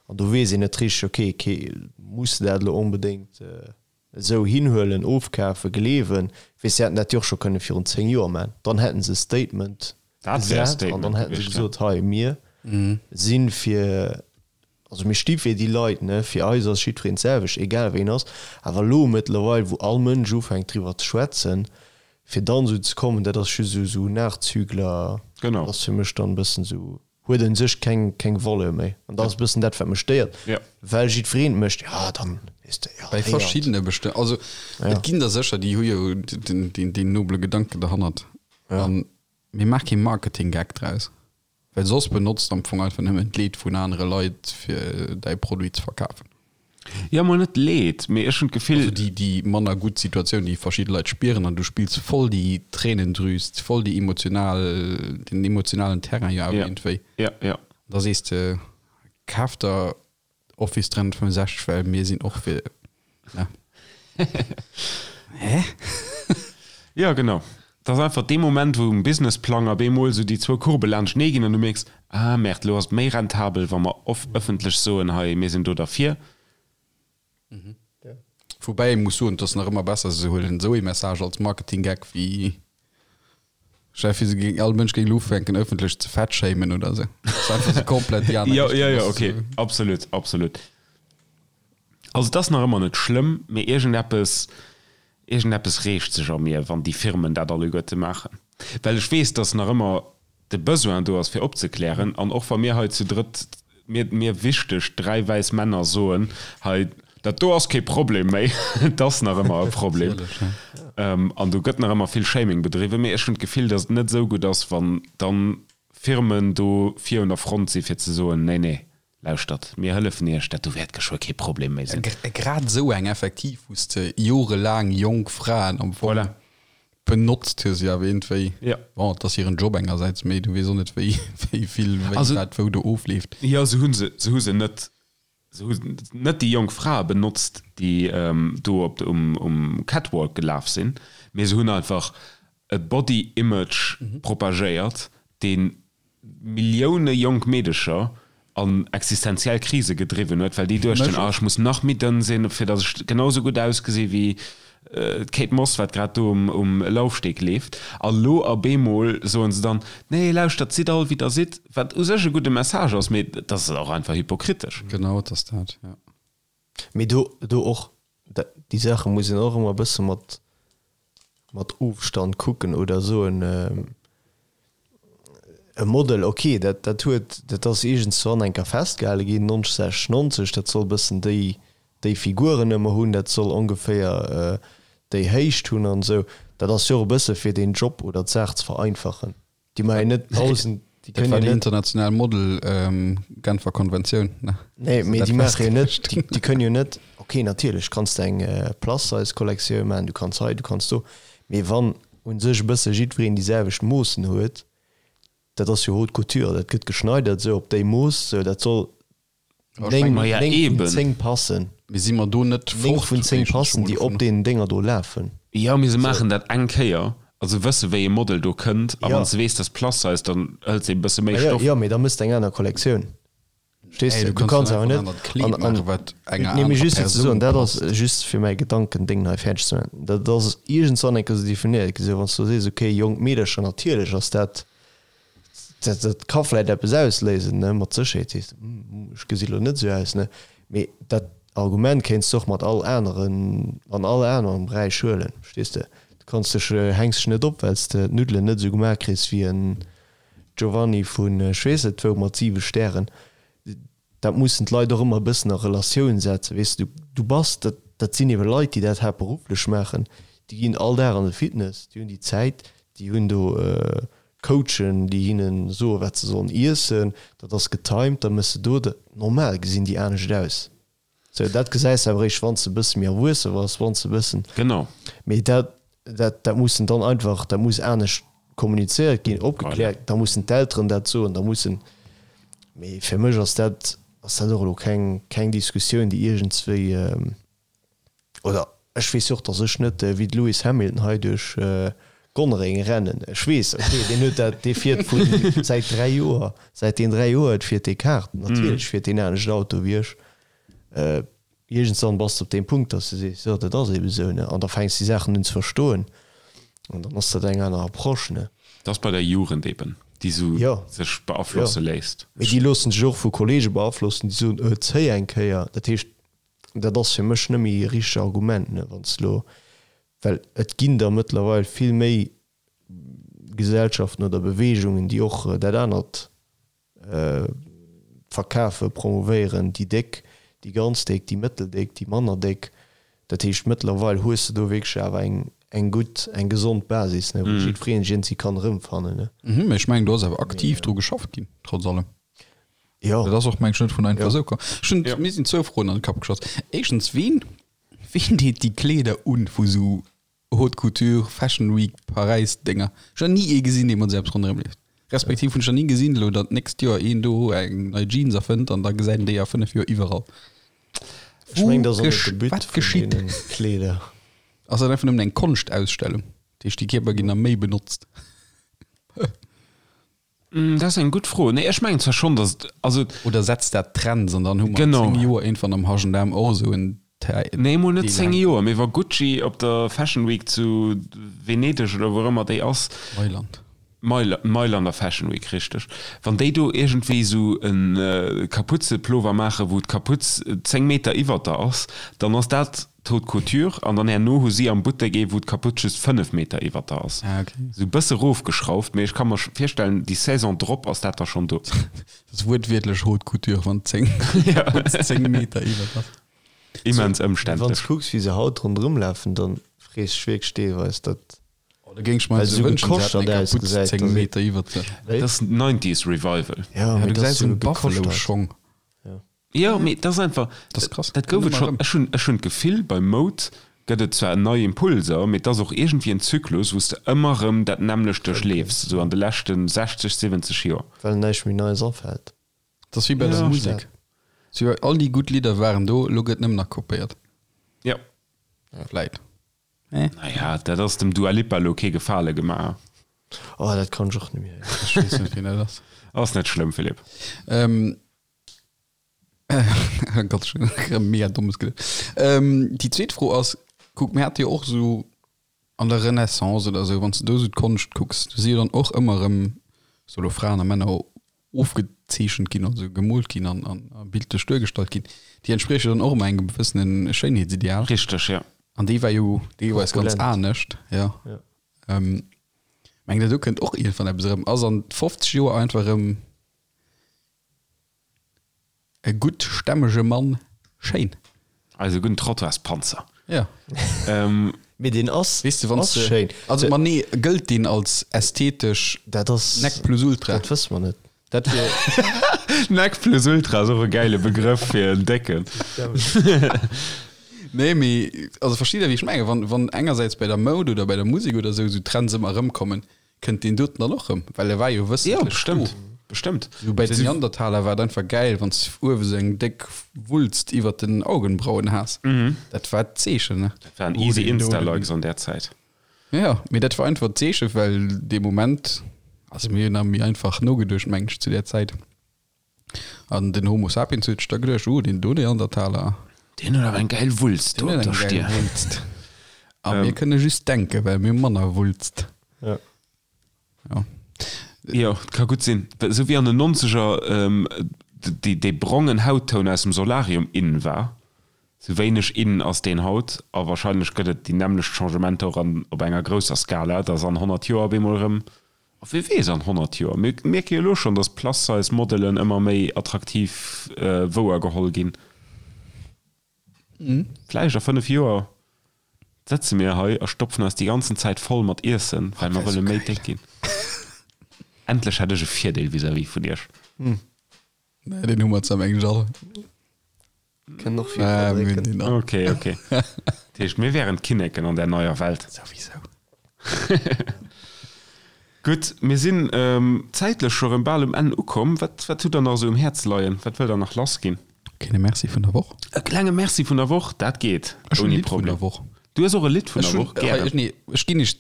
An do weess een net richteg, ok, ke muss de dat elo onbedéngt esou hinhuelen, ofkafen, gleewen? Weess, se hätten dat jo och scho kënne virun 10 Joer maachen, dann hätten se e Statement Dat wär e gesat an dann Statement hätten se gewiescht, ja. gesot, hei mir si fir Also mir sti fir déi Leit, ne, fir eis ass jiddwereen d'selwecht, egal wéi en ass. Awer elo mëttlerweil, wou all Mënsch ufänkt driwwer ze schwätzen, fir dann esou ze kommen, dat ass just esou esou Nachzügler, Genau. ass fir mech dann e bëssen esou, huet un sech keng keng Valeur méi. An dat ass e bëssen dat, wat mech stéiert, Ja. well jiddwereen et mécht, jo dann, weess de, jo Bei héiert. verschiddene bestëmmt. Also et ginn der sécher, déi hu jo den deen deen nobele Gedanken derhannert. An mee maach kee Marketing-Gag draus. Well soss benotzt am Fong einfach nëmmen d'Leed vun anere Leit fir däi Produit ze verkafen. Jo, mol net Leed, mee ech hunn d'Gefill. Also déi déi manner gutt Situatioun, déi verschidde Leit spieren an du spills voll déi Tréinendrüs, voll déi emotional, den emotionalen Terrain jo awer iergendwéi. Ja, ja. Da sees de, kaf der Office 365, well mir sinn och fir, ne? Hä? Ja, genau. Dat ass einfach dee Moment, wou um Businessplang op eemol esou déi zwou Courbe laanschtenee ginn an du mierks, ah Merde, elo ass et méi rentabel, wa mer off ëffentlech soen, hei, mir sinn do derfir. Woubäi ee muss soen, et ass nach ëmmer besser, se huelen esou ee Message als Marketing-Gag wéi Stell dir vir, se géing, all Mënsch géing elo ufänken ëffentlech ze fat-shamen oder esou. Dat ass einfach sou komplett déi aner Jo, Richtung. jo, jo, Das okay, ist so. absolut, absolut. Also et ass nach ëmmer net schlëmm, mee iergendeppes, iergendeppes reegt sech a mir, wann déi Firmen dat alleguerte maachen. Well ech weess, dass nach ëmmer de Besoin do ass fir opzeklären, an och wa mir hei zu drëtt, mir, mir wichteg dräi wäiss Männer soen, hei, dat do ass kee Problem méi, et ass nach ëmmer e Problem, an do gëtt nach ëmmer vill Shaming bedriwwen, mee ech hunn d'Gefill, datt et net esou gutt ass, wann dann Firmen do vir un der Front si fir ze soen, nee, nee, lauschtert, mir hëllefen Iech, dat do wäert geschwë kee Problem méi sinn. Grad esou eng effektiv, wou s de jorelaang jonk Fraen am Fong Voilà. benotzt hues, jo awer iergendwéi, Ja. bon, et ass hiren Job engersäits, mee du weess och net, wéi, wéi vill, wéi Also, wat wou do ofleeft. jo, se hu se, se hu se net, se hu net déi jonk Frae benotzt, déi do op de, um, um Catwalk gelaf sinn, mee se hunn einfach e Body Image propagéiert, deen Millioune jonk Meedecher an existenziell Krise gedriwwen huet, well déi duechten, ah, ech muss nach méi dënn sinn, fir datt ech genau sou gutt ausgesi wéi d'Kate Moss, wat grad do um Laufsteg leeft. A lo op eemol soen se dann, nee, lauschtert, sidd all wéi der sidd, wat u sech e gudde Message ass, mee dat ass och einfach hypokritesch. Genau, et ass dat, jo. Mee do, do och, déi Saache muss een och ëmmer e bësse mat. mat Ofstand kucken oder soen, e Model, ok, dat dat huet, dat ass iergendzwann eng Kéier festgehale ginn, 90, 90, dat soll e bëssen déi déi Figuren ëmmer hunn, dat soll ongeféier déi Héicht hunn an esou. Dat ass jo och e bësse fir den Job oder d'Saach ze vereinfachen. Déi maache jo net 1.000, déi Dat kënnen war jo déi net. international Model Genfer Konventioun, ne? Nee, mee déi maache jo net, déi déi kënnen jo net, ok, natierlech kanns de eng Plus-Size-Kollektioun maachen, du kanns hei, du kanns do, mee wann u sech e bësse jiddwereen déi selwecht Moossen huet, dat ass jo Haute Couture, dat gëtt geschneidert esou op déi Mooss, esou dat soll 9, Maja, 9 vun eben. 10 passen. Mee si mer do net 9 fort vun 10 éischtens scho passen, mol déi op dovunner? deenen Dénger do lafen. Jo, mee se Esou. maachen dat eng Kéier, also wësse wéi e Model do kënnt, a Ja. wann s de weess, dass Plus Size, dann hëls de e bësse méi Ma jo, Stoff. jo, mee da mëss de eng aner Kollektioun. Verstees Ey, de? du Du kanns kanns dann awer einfach net en anert Kleed an, an, maachen, wat enger nee, mee anerer just fir ze Persoun soen, dat ass passt. just fir mäi Gedankendéng hei fäerdeg ze maachen, dat ass iergendzwann eng Kéier esou definéiert gi, sou wann s du sees, okay, jonk Meedercher, natierlech ass dat, dat, dat ka vläit eppes ausléisen, ne, mat Sécherheet sees de, hm, ech gesi lo net esou aus, ne, mee dat Argument kéints de och mat all aneren, an all anerem Beräich huelen, verstees de? Du kanns dech, hänks dech net op, well s de d'Nuddelen net esou gemaach kriss wéi en Giovanni vun ech weess net wou mat 7 Stären. Dat mussen d'Leit och ëmmer e bëssen a Relatioun setzen, weess de. Du bass, dat, dat sinn ebe Leit, déi dat haaptberufflech maachen, déi ginn all Dag an de Fitness, déi hunn déi Zäit, déi hunn do Coachen, déi hinne soen, wat se sollen iessen, dat ass getimed, da méchs de do dat. Normal gesinn déi anescht aus. Sou, dat gesäis de awer eréischt, wann s de e bësse méi erwuesse bass, wann s de e bëssen. Genau. Mee dat, dat, dat mussen dann einfach, dat muss anescht kommunizéiert ginn, opgekläert, da mussen d'Elteren dat soen, da mussen. Mee fir mech ass dat, ass dat och elo keng, keng Diskussioun, déi iergendswéi, oder ech weess jo och, datt ech net wéi de Lewis Hamilton hei duerch Gonnereng rennen. Ech weess, okay, deen huet dat, dee fiert vu säit 3 Joer, säit deen 3 Joer huet, fiert dee Kart. Natierlech fiert deen anescht Auto wéi ech. Iergendswann bass de op deem Punkt, dass de sees, jo, dat ass eebe sou, ne? An da fänks de déi Saachen un ze verstoen an dann ass dat eng aner Approche, ne? Dat ass bei der Jugend eeben, déi sou Jo, sech jo. beaflosse léisst. Mee déi loossen sech och vu Kollege beaflossen, déi soen, Äh, zéi eng Kéier. Dat heescht, dat ass fir mech net méi e richtegt Argument, ne, wann s de elo, well et ginn der mëttlerweil vill méi Gesellschaften oder Beweegungen, déi och dat anert verkafen, promouvéieren, déi Déck, déi ganz Déck, déi mëtteldéck, déi manner Déck. Dat heescht, mëttlerweil hues de do wierklech awer eng, eng gutt, eng gesond Basis, ne, wou jiddwereen sech iergendwéi kann erëmfannen, ne. Mhm, mee ech mengen, do ass awer aktiv dru geschafft ginn, trotz allem. Jo. Dat ass och, meng ech, net vun einfach Jo. esou komm. Ech hunn, Jo. mir sinn zwou Froen an de Kapp geschoss. Éischtens, ween, ween deet déi Kleeder un vu sou Haute Couture, Fashion Week, Paräis Dénger. Ech hunn nach ni ee gesinn, dee mat esou eppes ronderëm leeft. Respektiv hunn ech nach ni gesinn, elo datt d'nächst Joer een do eng nei Jeans erfënnt an da gesäit een déi a 5 Joer iwwerall. Ech mengen, dat ass och net Wou de But wat vun geschitt? deene Kleeder. Ass dat einfach nëmmen eng Konschtausstellung? Dat heescht, déi Kierper ginn da méi benotzt? Dat ass eng gutt Fro. Nee, ech mengen zwar schonn, datt et, also. Oder setzt dat Trends an dann hu mer an Genau. 10 Joer iergendwann am H&M och esou en Deel Nee, emol net 10 hänken. Joer, mee wa Gucci op der Fashion Week zu Venedeg oder wou och ëmmer déi ass, Mailand. Mail, Mailander Fashion Week, richteg, wann déi do iergendwéi esou e Kaputzeplover maachen, wou d'Kaputz 10 Meter iwwert der ass, dann ass dat D'Haute Couture, an dann herno hu si am Buttek ee wou d'Kaputt just 5 Meter iwwert der ass. Ah, okay. Sou bësse rofgeschrauft, mee ech ka mer virstellen déi Saison drop ass dat da schonn do. Dat ass wuertwiertlech Haute Couture, wann 10 Kaputt 10 Meter iwwert ass. Immens Wann s ëmständlech. kucks wéi se haut ronderëm lafen, dann frees dech wierklech deelweis dat Oh, da géing ech mer well esou se sou wënschen, se hätten gekoschtert eng Kaputt ausgesäit, 10 dass ee Meter iwwert sech. Wéi? Dat ass Nineties Revival. Ja, Ja, mee du dat ass gesäis sou en gekoschtert. Buffalo-Schong. Jo, mee dat ass einfach, Dat ass krass. dat gouf et Ëmmer schonn. erëm. Ech hunn, ech hunn d'Gefill, bei Moud gëtt et zwar nei Impulser, mee et ass och iergendwéi en Zyklus, wou s de ëmmer erëm dat nämmlecht duerchleefs, esou an de leschte 60, 70 Joer. Well näischt méi Neies afält. Dat ass wéi bei der Ja. Musek. Sou, all déi gutt Lidder waren do, elo gëtt nëmmen nach kopéiert. Ja. Vläit. Naja, dat ass dem Dua Lipa elo kee Gefale gemaach. Oh, dat kann ech och net méi héieren. Ech weess net, wien dat ass. Ass net schlëmm, Philippe. Ähm, Gott, schon erëm mega dommes geduet. Ähm, déi zweet Fro ass, kuck, mir hate jo och esou an der Renaissance oder esou, wann s de do esou d'Konscht kucks, do si jo dann och ëmmer erëm sou elo Fraen a Männer ofgezeechent ginn, also gemoolt ginn an, an a bildlech duergestallt ginn. Déi entsprieche dann och ëmmer engem gewëssene Schéinheetsideal. Richteg, ja. An déi war jo deelweis ganz Korpulent. anescht, ja. Ja. Mengt der do kënnt och iergendwann eppes erëm? Ass an 50 Joer einfach erëm e gutt stämmege Mann schéin? Eise gudden Trottoirspanzer. Ja. Mee deen ass, Weess de, wann ass s de, schéin. also ma nee, gëllt deen als ästhetesch Dat ass, Nec plus ultra? dat wësse mer net. Dat wier. Nec plus ultra ass och e gäile Begrëff fir en Décken. Nee, mee also versteet der wéi ech mengen? Wann, wann engersäits bei der Moud oder bei der Musek oder esou, esou Trends ëmmer erëmkommen, kënnt deen doten dann och erëm, well e war jo Jo, wëssentlech do. bestëmmt, bestëmmt. Esou bei den Neandertaler war et einfach gäil, wann s de uewe sou eng déck Wulst iwwert den Augenbrauen has. Dat war d'Zeechen, ne? Dat waren easy Insta-Likes an där Zäit. Jo, mee dat war einfach d'Zeechen, well dee Moment, also mir hunn nach méi einfach nogeduecht, mengen ech, zu där Zäit. An den Homo sapiens huet sech da geduecht, oh, deen do Neandertaler. Deen huet awer eng gäil Wulst do Deen op huet der eng gäil Stier. Wulst. A mir kënne just denken, well mir hu manner Wulst. Ja. Ja. Jo, et ka gutt sinn. Esou wéi an den Nonzeger déi, dee brongen Hauttoun aus dem Solarium in war, esou wéineg in ass deen haut. A wahrscheinlech gëtt et déi nämmlecht Changementer och an, op enger grousser Skala, dass an 100 Joer op eemol erëm A wie weess an 100 Joer? Mir mierke jo elo schonn, datt Plus-Size-Modelen ëmmer méi attraktiv wouergeholl ginn. Vläicht a 5 Joer sëtze mir hei a stopfen eis déi ganzen Zäit voll mat Iessen, well mer wëlle méi déck ginn. Endlech hätt ech e Virdeel vis-à-vis vun iech. Nee, deen hu mer zwar mengen ech all. Kënnen och vill Ah, mir hunn verdrécken. deen all. Okay, okay. Dat heescht, mir wären d'Kinneken an där neier Welt. Souwisou. Gutt, mir sinn zäitlech scho rëm bal um Enn ukomm. Wat, wat hutt Der nach esou um Häerz leien? Wat wëllt Der nach lassginn? Kleine Merci vun der Woch. E klenge Merci vun der Woch, dat geet Ech hunn e ouni Lidd vun Problem. der Woch. Du hues och e Lidd vun Ech der hunn, Woch? Gären. ech, nee, ech ginn iech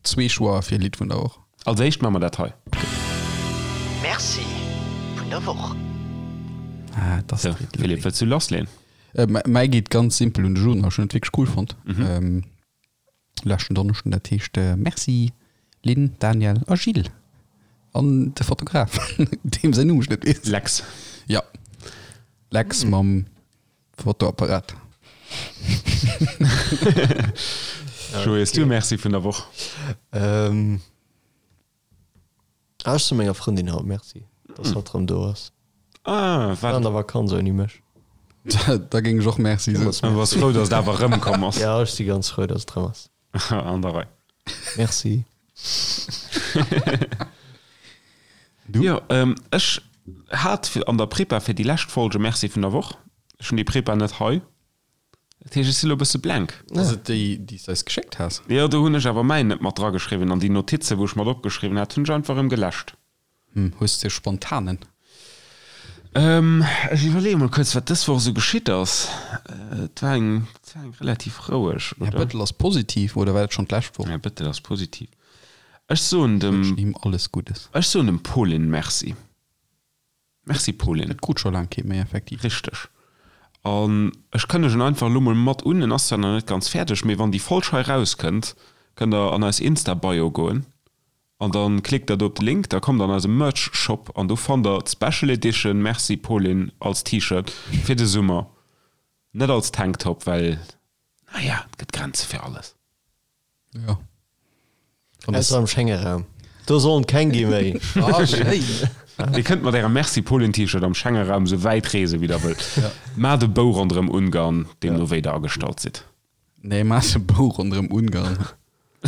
Zwee Choixer fir Lidd vun der Woch. Als éischt maache mer dat hei. Merci vun der Woch. Ah, dat ass Sou, Philippe, wëlls du lassleen? Mäi geet ganz simpel un de Juna. Ech hunn et wierklech cool fonnt leschten Donneschden. Dat heescht Merci Lynn, Daniel a Gilles an de Fotograf, deem säin Numm ech net weess. Lex. Ja, Lex mam Fotoapparat. Joé, hues du e Merci vun der Woch? Ähm, ah, ech soe menger Frëndin haut Merci, dass hatt erëm do ass. Ah, War an wat? der Vakanz ouni mech. Da géing ech och Merci soen. Du bass frou, dass et awer erëmkomm ass. Ja, ech si ganz frou, dass et erëm ass. An der Rei. Merci. Du? Jo, ech hat an der Prepa fir déi lescht Folge Merci vun der Woch. Ech hunn déi Prepa net hei. Dat heescht, ech si lo e bësse blank. Ass et déi, déi s de eis geschéckt has? Jo, do hunn ech awer mäin net mat drageschriwwen an déi Notize, wou ech mat opgeschriwwen hat, hunn ech einfach erëm geläscht. Hm, hues de spontanen? Ech iwwerleeë mol kuerz, wat dës Woch esou geschitt ass. Et war eng, et war eng relativ roueg, Här oder? Bëttel ass positiv, oder war dat schonn d'lescht Woch? Här Bëttel ass positiv. Ech soen dem. Wënschen him alles Guddes. Ech soen dem Pauline Merci. Merci Pauline. Et krut scho laang kee méi, effektiv. Richteg. An ech kënnegen einfach elo mol mat un, en ass zwar nach net ganz fäerdeg, mee wann déi Folg hei rauskënnt, kënnt der an eis Insta-Bio goen an da klickt der do op de Link, da kommt der an eise Merch-Shop an do fannt der d'Special Edition Merci Pauline als T-Shirt fir de Summer. Net als Tanktop, well, naja, et gëtt Grenze fir alles. Ja. Ausser am Schengeraum. Do sollen keng gi méi. Ah, schéin. Dir kënnt mat ärem Merci Pauline T-Shirt am Schengeraum sou wäit reese wéi der wëllt. Maacht e Bou ronderëm Ungarn, deemno wéi der agestallt sidd. Nee, maacht e Bou ronderëm Ungarn.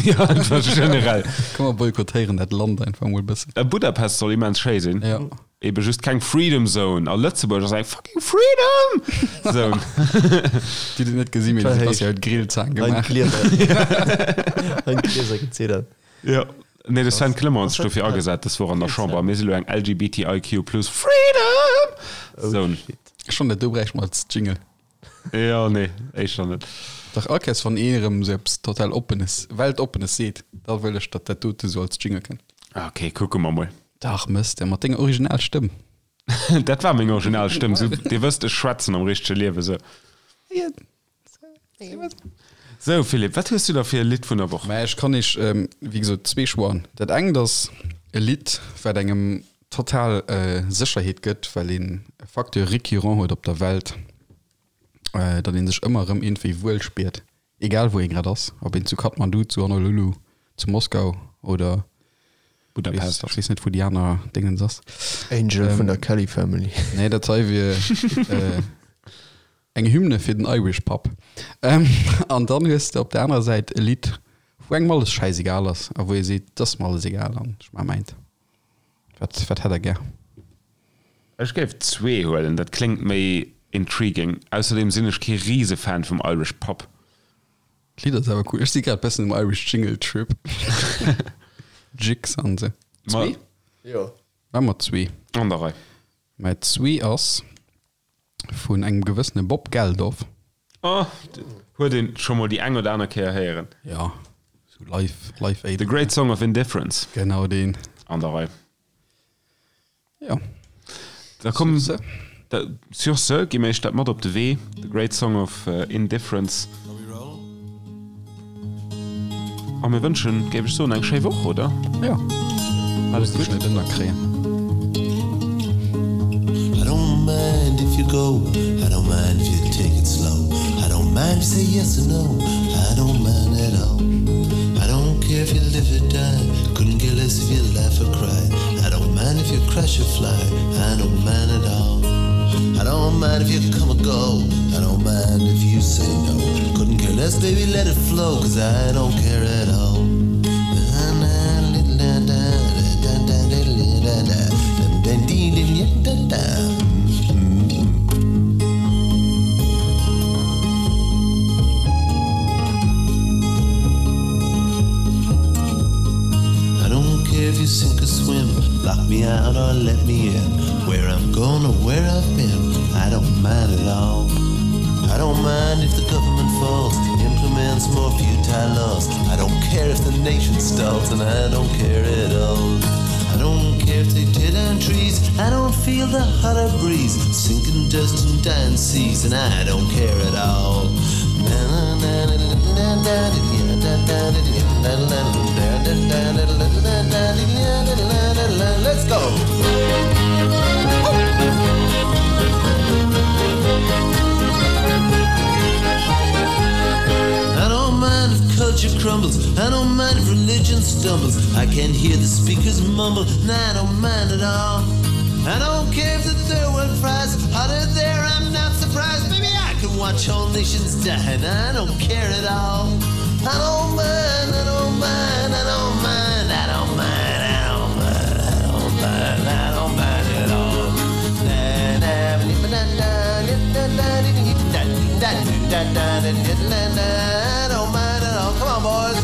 Ja, einfach generell. Komm mer boykottéieren dat Land einfach mol e bëssen. Budapest soll immens schéi sinn. Ja. Ebe just keng Freedom Zone. A Lëtzebuerg ass eng fucking Freedom Zone. Déi déi net gesinn, mee de Sebastian huet Grillzaang gemaach. Hein d'Glieser geziddert. Jo. Nee, de Sven Clement huet sech dofir agesat dës Woch an der Chamber. Mir si lo eng LGBTIQ plus Freedom Zone. Ech fannen dat do bräicht mer als Jingle. Jo, nee, éischter net. Dach all Kéiers wann een erëm esou eppes total Oppenes, Weltoppenes seet, da wëll ech datt dat dote sou als Jingle kënnt. Ok, kucke mer mol. Dach mëss de mat denger original Stëmm. Dat war meng original Stëmm. Sou, dir wësst, ech schwätzen am richtege Liewe sou. Sou, Philippe, wat hues du da fir e Lidd vun der Woch? Mä ech kann iech, wéi gesot, zwee Choixen. Dat engt ass e Lidd, wat engem total Sécherheet gëtt, well een e Facteur récurrent huet op der Welt, datt ee sech ëmmer erëm iergendwéi wuel spiert, egal wou ee grad ass, ob een zu Kathmandu, zu Honolulu, Zu Moskau oder Budapest. Ech weess net wou déi aner Dingens ass. Angel vun der Kelly Family. Nee dat hei wier eng Hymne fir den Irish Pub. An dann hues de op der anerer Säit e Lidd wou engem alles schäisegal ass a wou ee seet, et ass mer alles egal an ech maache mäint. Wat wat hätt der gär? Ech géif zwee huelen, dat kléngt méi intriguing. Ausserdeem sinn ech kee Risefan vum Irish Pub. D'Lidd ass awer cool. Ech si grad bessen um Irish Jingle Trip. Jigs an se. Zwee? Jo. War mat zwee. An der Rei. Mä zwee ass vun engem gewëssene Bob Geldof. Oh, huet een scho mol déi eng oder aner Kéier héieren. Ja, sou live, Live Aid. The Great Song of Indifference. Genau deen. An der Rei. Ja. Da komm, sur ce, da, sur ce gi mir iech dat mat op de Wee, The Great Song of Indifference. A mir wënschen, géif ech soen, eng schéi Woch, oder? Ja. Alles gutt. Net ënnerkréien. I don't mind if you go, I don't mind if you take it slow, I don't mind if you say yes or no, I don't mind at all. I don't care if you live or die, couldn't care less if you laugh or cry. I don't mind if you crash or fly, I don't mind at all. I don't mind if you come or go, I don't mind if you say no. Couldn't care less, baby, let it flow, cause I don't care at all. I don't care if you sink or swim, lock me out or let me in. Where I'm going or where I've been, I don't mind at all. I don't mind if the government falls, implements more futile laws. I don't care if the nation stalls, and I don't care at all. I don't care if they tear down trees, I don't feel the hotter breeze, sinking dust and dying seas, and I don't care at all. Let's go! I don't mind if culture crumbles, I don't mind if religion stumbles. I can hear the speakers mumble, and I don't mind at all. I don't care if the third world fries hotter there, I'm not surprised. Baby, I can watch whole nations die, and I don't care at all. I don't mind, I don't mind, I don't mind, I don't mind, I don't mind, I don't mind, I don't mind at all. I don't mind at all. Come on, boys.